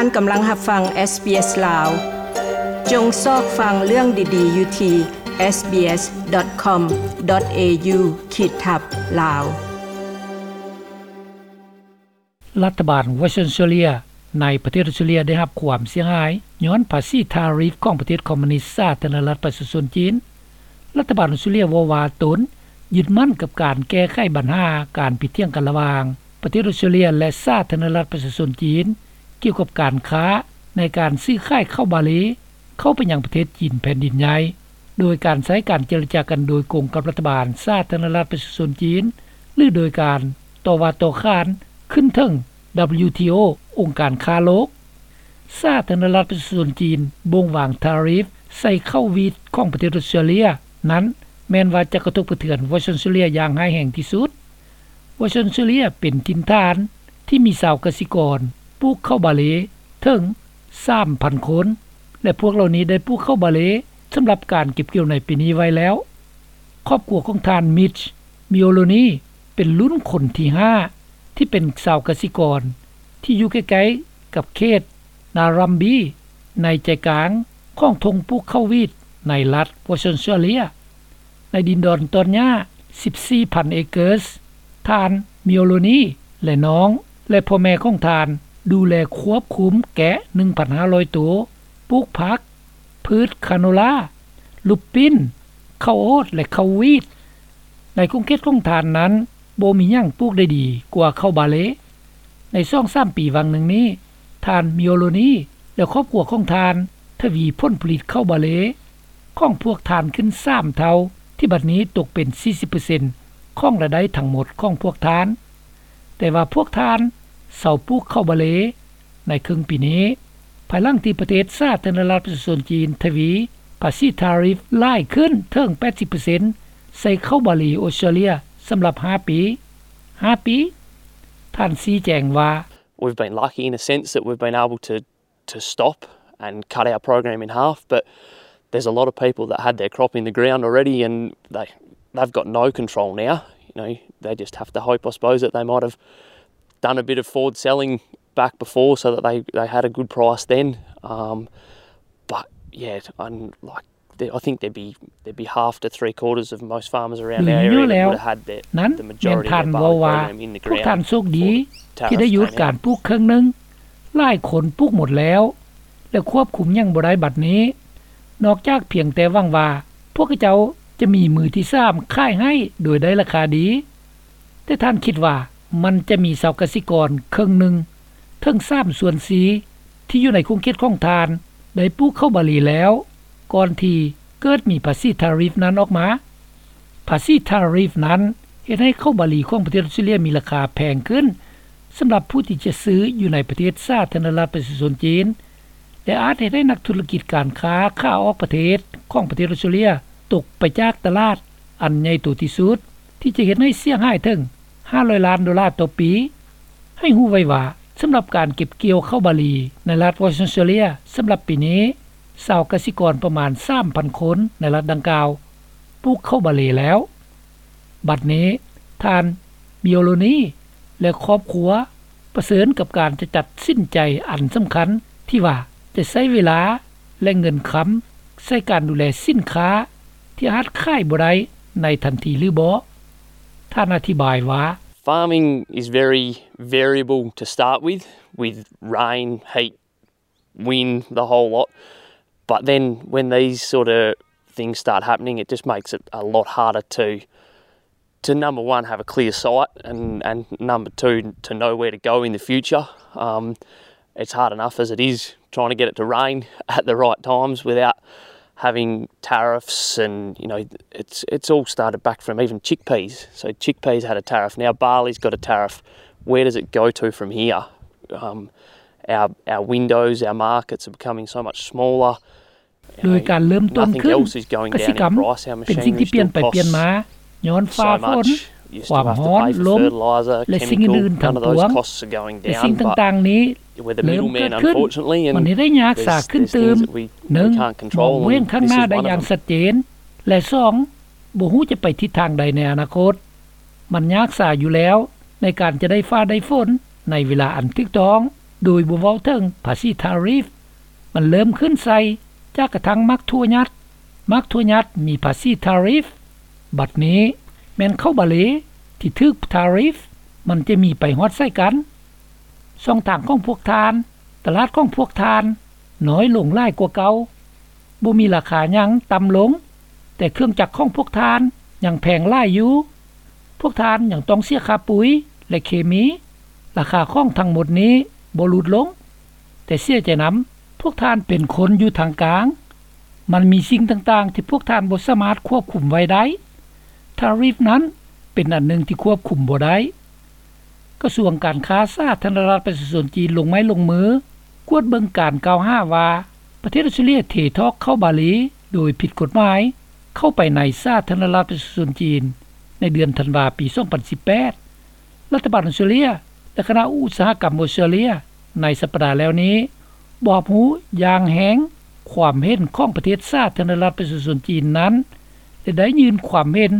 ທ່ານກຳລັງຮັບຟັງ SBS ລາວ. ຈົ່ງຊອກຟັງເລື່ອງດີໆຢູ່ທີ່ SBS.com.au ຂີດທັບ ລາວ. ລັດຖະບານວອສເຕຣເລັຍ ໃນປະເທດອອສເຕຣເລັຍ ໄດ້ຮັບຄວາມເສຍຫາຍຍ້ອນພາສີທາຣິຟຂອງປະເທດຄອມມູນິດສາທາລະນະລັດປະຊາຊົນຈີນ. ລັດຖະບານອອສເຕຣເລັຍເວົ້າວ່າຕົນຍຶດໝັ້ນກັບການແກ້ໄຂບັນຫາການຜິດຖຽງກັນລະຫວ່າງປະເທດອອສເຕຣເລັຍ ແລະ ສາທາລະນະລັດປະຊາຊົນຈີນ ກ່ຽວກັບການຄ້າໃນການຊື້ຂາຍເຂົ້າບາເລ ເຂົ້າໄປຍັງປະເທດຈີນແຜ່ນດິນໃຫຍ່ ໂດຍການໃຊ້ການເຈລະຈາກັນໂດຍກົງກັບລັດຖະບານສາທາລະນະລັດປະຊາຊົນຈີນ ຫຼື ໂດຍການຕໍ່ວ່າຕໍ່ຂານຂຶ້ນເທິງ WTO ອົງການຄ້າໂລກ. ສາທາລະນະລັດປະຊາຊົນຈີນບົ່ງວາງທາຣິຟໃສ່ເຂົ້າວີດຂອງປະເທດອອສເຕຣເລັຍນັ້ນ ແມ່ນວ່າຈະກະທົບກະເທືອນວອສເຕຣເລັຍຢ່າງຮ້າຍແຮງທີ່ສຸດ. ວອສເຕຣເລັຍເປັນຖິ່ນຖານທີ່ມີຊາວກະສິກອນປູກເຂົ້າບາເລເຖິງສາມພັນຄົນ ແລະ ພວກເຫຼົ່ານີ້ໄດ້ປູກເຂົ້າບາເລສຳລັບການເກັບກ່ຽວໃນປີນີ້ໄວ້ແລ້ວ. ຄອບຄົວຂອງທ່ານ Mitch Mioloni ເປັນລຸ້ນຄົນທີຫ້າ ທີ່ເປັນຊາວກະສິກອນທີ່ຢູ່ໃກ້ໆກັບເຂດ Narrabee ໃນໃຈກາງຂອງທົ່ງປູກເຂົ້າວີດໃນລັດ Western Australia ໃນດິນດອນຕອນຫຍ້າ ສິບສີ່ພັນ acres. ທ່ານ Mioloni ແລະ ນ້ອງ ແລະ ພໍ່ແມ່ຂອງທ່ານ ດູແລຄວບຄຸມແກະ ໜຶ່ງພັນຫ້າຮ້ອຍໂຕ, ປູກຜັກ, ພືດຄາໂນລາ, ລູບປິ້ນ, ເຂົ້າໂອດ ແລະ ເຂົ້າວີດ. ໃນຂົງເຂດຂອງທ່ານນັ້ນ ບໍ່ມີຫຍັງປູກໄດ້ດີກວ່າເຂົ້າບາເລ. ໃນສອງສາມປີຫວ່າງໜຶ່ງນີ້, ທ່ານ Mioloni ແລະ ຄອບຄົວຂອງທ່ານ ທະວີຜົນຜະລິດເຂົ້າບາເລຂອງພວກທ່ານຂຶ້ນສາມເທົ່າ, ທີ່ບັດນີ້ຕົກເປັນສີ່ສິບເປີເຊັນຂອງລາຍໄດ້ທັງໝົດຂອງພວກທ່ານ. ແຕ່ວ່າພວກທ່ານເຊົາປູກເຂົ້າບາເລໃນເຄິ່ງປີນີ້, ພາຍຫຼັງທີ່ປະເທດສາທາລະນະລັດປະຊາຊົນຈີນທະວີພາສີທາຣິຟຫຼາຍຂຶ້ນເຖິງແປດສິບເປີເຊັນໃສ່ເຂົ້າບາລີອອສເຕຣເລັຍສຳລັບຫ້າປີ. ຫ້າປີ. ທ່ານຊີ້ແຈງວ່າ, We've been lucky in a sense that we've been able to to stop and cut our program in half, but there's a lot of people that had their crop in the ground already and they, they've got no control now. You know, they just have to hope, I suppose, that they might have done a bit of forward selling back before so that they, they had a good price then. Um, but yeah, and like, I think there'd be, there'd be half to three quarters of most farmers around our area that would have had their, the majority of their barley program in the ground. ນັ້ນແມ່ນທ່ານເວົ້າວ່າ ພວກທ່ານໂຊກດີທີ່ໄດ້ຢຸດການປູກເຄິ່ງໜຶ່ງ, ຫຼາຍຄົນປູກໝົດແລ້ວ ແລະ ຄວບຄຸມຫຍັງບໍ່ໄດ້ບັດນີ້ ນອກຈາກພຽງແຕ່ຫວັງວ່າພວກເຂົາເຈົ້າຈະມີມືທີສາມຂາຍໃຫ້ໂດຍໄດ້ລາຄາດີ. ແຕ່ທ່ານຄິດວ່າມັນຈະມີຊາວກະສິກອນເຄິ່ງໜຶ່ງເຖິງສາມສ່ວນສີ່ທີ່ຢູ່ໃນຂົງເຂດຂອງທ່ານໄດ້ປູກເຂົ້າບາລີແລ້ວ ກ່ອນທີ່ເກີດມີພາສີທາຣິຟນັ້ນອອກມາ. ພາສີທາຣິຟນັ້ນເຮັດໃຫ້ເຂົ້າບາລີຂອງປະເທດອອສເຕຣເລັຍມີລາຄາແພງຂຶ້ນສຳລັບຜູ້ທີ່ຈະຊື້ຢູ່ໃນປະເທດສາທາລະນະລັດປະຊາຊົນຈີນ ແລະ ອາດເຮັດໃຫ້ນັກທຸລະກິດການຄ້າຂາອອກປະເທດຂອງປະເທດອອສເຕຣເລັຍຕົກໄປຈາກຕະຫຼາດອັນໃຫຍ່ໂຕທີ່ສຸດ ທີ່ຈະເຮັດໃຫ້ເສຍຫາຍເຖິງຫ້າຮ້ອຍລ້ານໂດລາຕໍ່ປີ. ໃຫ້ຮູ້ໄວ້ວ່າ ສຳລັບການເກັບກ່ຽວເຂົ້າບາລີໃນລັດວອສເຕີນອອສເຕຣເລັຍສຳລັບປີນີ້, ຊາວກະສິກອນປະມານສາມພັນຄົນໃນລັດດັ່ງກ່າວປູກເຂົ້າບາລີແລ້ວ. ບັດນີ້ ທ່ານ Mioloni ແລະ ຄອບຄົວປະເຊີນກັບການຈະຕັດສິນໃຈອັນສຳຄັນ ທີ່ວ່າຈະໃຊ້ເວລາ ແລະ ເງິນຄຳໃສ່ການດູແລສິນຄ້າທີ່ອາດຂາຍບໍ່ໄດ້ໃນທັນທີຫຼືບໍ່. ທ່ານອະທິບາຍວ່າ, Farming is very variable to start with, with rain, heat, wind, the whole lot. But then when these sort of things start happening, it just makes it a lot harder to, to number one, have a clear sight, and, and number two, to know where to go in the future. Um, it's hard enough as it is trying to get it to rain at the right times without having tariffs and, you know, it's, it's all started back from even chickpeas. So chickpeas had a tariff, now barley's got a tariff. Where does it go to from here? Um, our, our windows, our markets are becoming so much smaller. ໂດຍການເລີ່ມຕົ້ນຂຶ້ນ, ກະສິກຳເປັນສິ່ງທີ່ປ່ຽນໄປປ່ຽນມາ ຍ້ອນຟ້າຝົນ, ຄວາມຮ້ອນ, ລົມ ແລະ ສິ່ງອື່ນໆທັງປວງ. ແຕ່ສິ່ງຕ່າງໆນີ້ເລີ່ມເກີດຂຶ້ນ, ມັນເຮັດໃຫ້ຍາກສາຂຶ້ນຕື່ມ. ໜຶ່ງ, ມອງບໍ່ເຫັນຂ້າງໜ້າໄດ້ຢ່າງຊັດເຈນ ແລະ ສອງ, ບໍ່ຮູ້ຈະໄປທິດທາງໃດໃນອະນາຄົດ. ມັນຍາກສາຢູ່ແລ້ວໃນການຈະໄດ້ຟ້າໄດ້ຝົນໃນເວລາອັນຖືກຕ້ອງ. ໂດຍບໍ່ເວົ້າເຖິງພາສີທາຣິຟ. ມັນເລີ່ມຂຶ້ນໃສ່ຈາກກະທັງໝາກຖົ່ວຫຍັດ. ໝາກຖົ່ວຫຍັດມີພາສີທາຣິຟ. ບັດນີ້ແມ່ນເຂົ້າບາເລທີ່ຖືກທາຣິຟ, ມັນຈະມີໄປຮອດໃສ່ກັນ. ຊ່ອງທາງຂອງພວກທ່ານ, ຕະຫຼາດຂອງພວກທ່ານນ້ອຍລົງຫຼາຍກວ່າເກົ່າ. ບໍ່ມີລາຄາຫຍັງຕ່ຳລົງ, ແຕ່ເຄື່ອງຈັກຂອງພວກທ່ານຍັງແພງຫຼາຍຢູ່. ພວກທ່ານຍັງຕ້ອງເສຍຄ່າປຸ໋ຍ ແລະ ເຄມີ. ລາຄາຂອງທັງໝົດນີ້ບໍ່ຫຼຸດລົງ. ແຕ່ເສຍໃຈນຳ, ພວກທ່ານເປັນຄົນຢູ່ທາງກາງ. ມັນມີສິ່ງຕ່າງໆທີ່ພວກທ່ານບໍ່ສາມາດຄວບຄຸມໄວ້ໄດ້. ທາຣິຟນັ້ນເປັນອັນໜຶ່ງທີ່ຄວບຄຸມບໍ່ໄດ້. ກະຊວງການຄ້າສາທາລະນະລັດປະຊາຊົນຈີນລົງໄມ້ລົງມືກວດເບິ່ງການກ່າວຫາວ່າ ປະເທດອອສເຕຣເລຍເທຖອກເຂົ້າບາເລໂດຍຜິດກົດໝາຍເຂົ້າໄປໃນສາທາລະນະລັດປະຊາຊົນຈີນໃນເດືອນທັນວາປີສອງພັນສິບແປດ. ລັດຖະບານອອສເຕຣເລຍ ແລະ ຄະນະອຸດສາຫະກຳອອສເຕຣເລຍໃນສັບປະດາແລ້ວນີ້ ບໍ່ຮັບຮູ້ຢ່າງແຮງຄວາມເຫັນຂອງປະເທດສາທາລະນະລັດປະຊາຊົນຈີນນັ້ນ ແລະ ໄດ້ຍື່ນຄວາມເຫັນ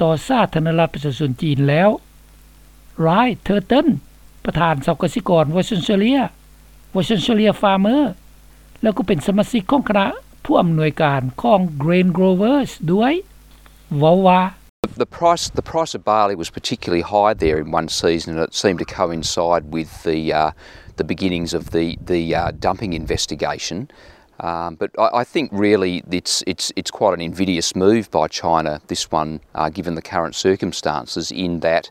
ຕໍ່ສາທາລະນະລັດປະຊາຊົນຈີນແລ້ວ. ຣາຍ ເທີເຕີນ ປະທານຊາວກະສິກອນ Western Australia, Western Australia Farmer ແລ້ວກໍເປັນສະມາຊິກຂອງຄະນະຜູ້ອຳນວຍການຂອງ Grain Growers ດ້ວຍ ເວົ້າວ່າ The price, the price of barley was particularly high there in one season, and it seemed to coincide with the, uh, the beginnings of the, the, uh, dumping investigation. Um, but I, I think really it's, it's, it's quite an invidious move by China, this one, uh, given the current circumstances, in that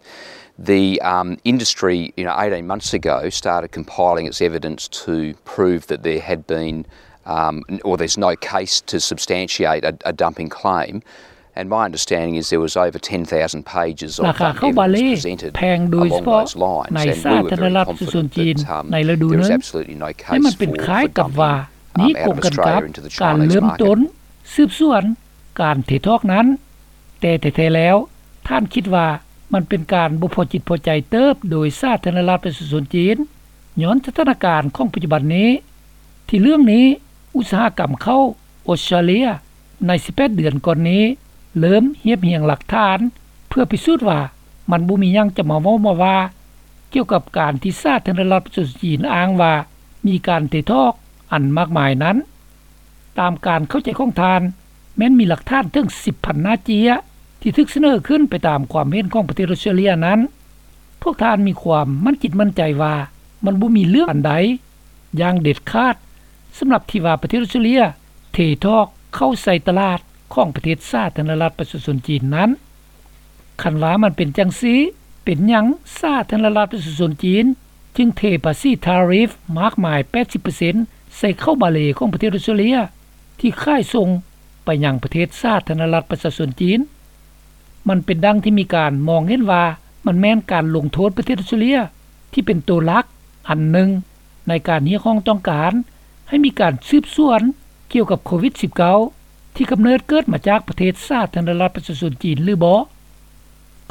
the, um, industry, you know, eighteen months ago started compiling its evidence to prove that there had been, um, or there's no case to substantiate a, a dumping claim. And my understanding is there was over ten thousand pages of, um, evidence presented along those lines, and we were very confident that, um, there was absolutely no case for, for dumping, um, out of Australia into the Chinese market. ສືບສວນການເທຖອກນັ້ນ, ແຕ່ແທ້ໆແລ້ວ ທ່ານຄິດວ່າມັນເປັນການບໍ່ພໍຈິດພໍໃຈເຕີບໂດຍສາທາລະນະລັດປະຊາຊົນຈີນ ຍ້ອນສະຖານະການຂອງປັດຈຸບັນນີ້. ທີ່ເລື່ອງນີ້ ອຸດສາຫະກຳເຂົ້າອອສເຕຣເລຍໃນສິບແປດເດືອນກ່ອນນີ້ ເລີ່ມຮຽບຮຽງຫຼັກຖານເພື່ອພິສູດວ່າມັນບໍ່ມີຫຍັງຈະມາເວົ້າມາວ່າ ກ່ຽວກັບການທີ່ສາທາລະນະລັດປະຊາຊົນຈີນອ້າງວ່າມີການເທຖອກອັນມາກມາຍນັ້ນ. ຕາມການເຂົ້າໃຈຂອງທ່ານ, ແມ່ນມີຫຼັກຖານເຖິງສິບພັນໜ້າເຈ້ຍທີ່ຖືກສະເໜີຂຶ້ນໄປຕາມຄວາມເຫັນຂອງປະເທດອອສເຕຣເລຍນັ້ນ. ພວກທ່ານມີຄວາມໝັ້ນຈິດໝັ້ນໃຈວ່າມັນບໍ່ມີເລື່ອງອັນໃດຢ່າງເດັດຂາດ ສຳລັບທີ່ວ່າປະເທດອອສເຕຣເລຍເທຖອກເຂົ້າໃສ່ຕະຫຼາດຂອງປະເທດສາທາລະນະລັດປະຊາຊົນຈີນນັ້ນ. ຄັນວ່າມັນເປັນຈັ່ງຊີ້, ເປັນຫຍັງສາທາລະນະລັດປະຊາຊົນຈີນຈຶ່ງເທພາສີທາຣິຟມາກມາຍແປດສິບເປີເຊັນໃສ່ເຂົ້າບາເລຂອງປະເທດອອສເຕຣເລຍທີ່ຂາຍສົ່ງໄປຍັງປະເທດສາທາລະນະລັດປະຊາຊົນຈີນ? ມັນເປັນດັ່ງທີ່ມີການມອງເຫັນວ່າມັນແມ່ນການລົງໂທດປະເທດອອສເຕຣເລຍທີ່ເປັນໂຕຫຼັກອັນໜຶ່ງໃນການຮຽກຮ້ອງຕ້ອງການໃຫ້ມີການສືບສວນກ່ຽວກັບໂຄວິດສິບເກົ້າ ທີ່ກຳເນີດເກີດມາຈາກປະເທດສາທາລະນະລັດປະຊາຊົນຈີນຫຼືບໍ່?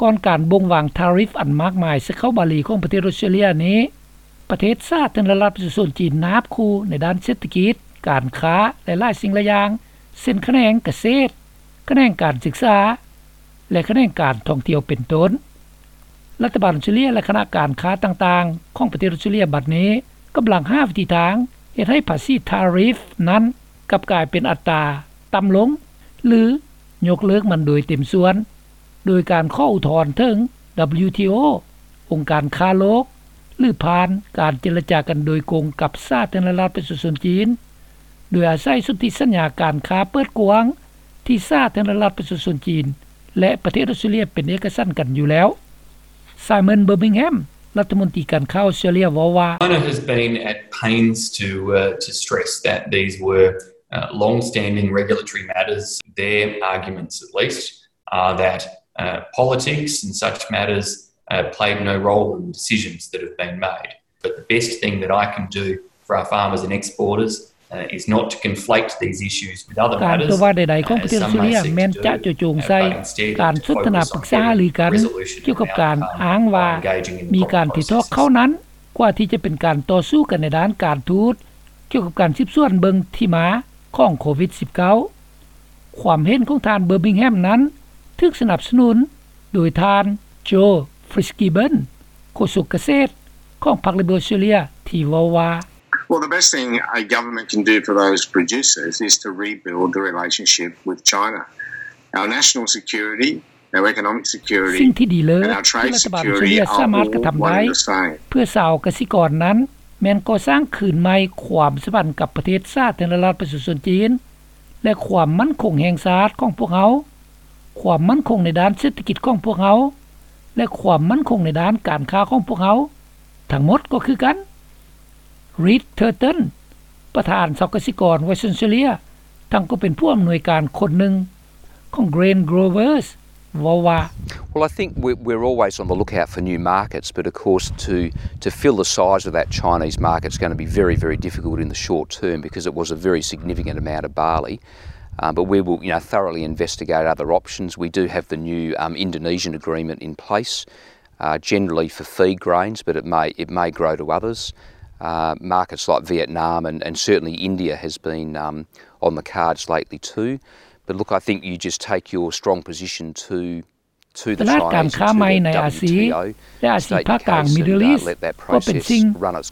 ກ່ອນການບົ່ງວາງທາຣິຟອັນມາກມາຍໃສ່ເຂົ້າບາລີຂອງປະເທດອອສເຕຣເລຍນີ້, ປະເທດສາທາລະນະລັດປະຊາຊົນຈີນນາບຄູ່ໃນດ້ານເສດຖະກິດ, ການຄ້າ ແລະ ຫຼາຍສິ່ງຫຼາຍຢ່າງ, ເຊັ່ນ ຂະແໜງກະເສດ, ຂະແໜງການສຶກສາ ແລະ ຂະແໜງການທ່ອງທ່ຽວເປັນຕົ້ນ. ລັດຖະບານອອສເຕຣເລຍ ແລະ ຄະນະການຄ້າຕ່າງໆຂອງປະເທດອອສເຕຣເລຍບັດນີ້ກຳລັງຫາວິທີທາງເຮັດໃຫ້ພາສີທາຣິຟນັ້ນກັບກາຍເປັນອັດຕາຕ່ຳລົງ ຫຼື ຍົກເລີກມັນໂດຍເຕັມສ່ວນ ໂດຍການຂໍອຸທອນເຖິງ WTO, ອົງການຄ້າໂລກ ຫຼື ຜ່ານການເຈລະຈາກັນໂດຍກົງກັບສາທາລະນະລັດປະຊາຊົນຈີນ, ໂດຍອາໄສສົນທິສັນຍາການຄ້າເປີດກວ້າງ ທີ່ສາທາລະນະລັດປະຊາຊົນຈີນ ແລະ ປະເທດອອສເຕຣເລຍເປັນເອກະສັນກັນຢູ່ແລ້ວ. ໄຊມອນ ເບີບິງແຮມ ລັດຖະມົນຕີການຄ້າອອສເຕຣເລຍ ເວົ້າວ່າ China has been at pains to, uh, to stress that these were, uh, long-standing regulatory matters. Their arguments, at least, are that, uh, politics and such matters, uh, played no role in the decisions that have been made. But the best thing that I can do for our farmers and exporters, uh, is not to conflate these issues with other matters, ການຕົວະວ່າໃດໆຂອງປະເທດອອສເຕຣເລຍແມ່ນຈະເຈາະຈົງໃສ່ການສົນທະນາປຶກສາຫາລືກັນກ່ຽວກັບການອ້າງວ່າມີການຖືກຖອກເຂົ້ານັ້ນ ກວ່າທີ່ຈະເປັນການຕໍ່ສູ້ກັນໃນດ້ານການທູດ ກ່ຽວກັບການສືບສວນເບິ່ງທີ່ມາຂອງໂຄວິດສິບເກົ້າ. ຄວາມເຫັນຂອງທ່ານ ເບີບິງແຮມ ນັ້ນ ຖືກສະໜັບສະໜູນໂດຍທ່ານ ໂຈ ຟິດສ໌ກິບເບິນ ໂຄສົກກະເສດຂອງພັກ Liberal Australia ທີ່ ທີ່ເວົ້າວ່າ Well, the best thing a government can do for those producers is to rebuild the relationship with China. Our national security, our economic security, ສິ່ງທີ່ດີເລີດທີ່ລັດຖະບານອົດສະເຕຣເລັຍສາມາດກະທຳໄດ້ ເພື່ອຊາວກະສິກອນນັ້ນ ແມ່ນກໍ່ສ້າງຄືນໃໝ່ຄວາມສຳພັນກັບປະເທດສາທາລະນະລັດປະຊາຊົນຈີນ ແລະ ຄວາມໝັ້ນຄົງແຫ່ງຊາດຂອງພວກເຮົາ, ຄວາມໝັ້ນຄົງໃນດ້ານເສດຖະກິດຂອງພວກເຮົາ ແລະ ຄວາມໝັ້ນຄົງໃນດ້ານການຄ້າຂອງພວກເຮົາ. ທັງໝົດກໍຄືກັນ. Reed Turton ປະທານຊາວກະສິກອນ Western Australia ທັງກໍເປັນຜູ້ອຳນວຍການຄົນໜຶ່ງຂອງ Grain Growers ເວົ້າວ່າ Well, I think we're always on the lookout for new markets, but of course to to fill the size of that Chinese market is going to be very, very difficult in the short term because it was a very significant amount of barley. Um, but we will, you know, thoroughly investigate other options. We do have the new um, Indonesian agreement in place. uh, generally for feed grains, but it may it may grow to others. Uh, markets like Vietnam and, and certainly India has been um, on the cards lately too. But look, I think you just take your strong position to to ຕ the ລາດການ Chinese ຄ້າໃໝ່ໃນອາຊີ ແລະ ອາຊີພາກກາງ Middle East ກໍເປັນສິ່ງ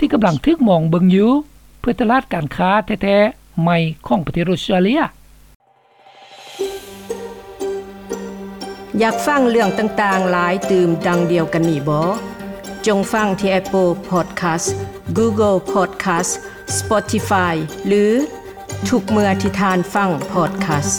ທີ່ກຳລັງຖືກມອງເບິ່ງຢູ່ ເພື່ອຕະຫຼາດການຄ້າແທ້ໆໃໝ່ຂອງປະເທດອົດສະເຕຣເລັຽ. ຢາກຟັງເລື່ອງຕ່າງໆຫຼາຍຕື່ມດັ່ງດຽວກັນນີ້ບໍ? ຈົ່ງຟັງທີ່ Apple Podcast, Google Podcast, Spotify ຫຼື ທຸກເມື່ອທີ່ທ່ານຟັງ Podcast.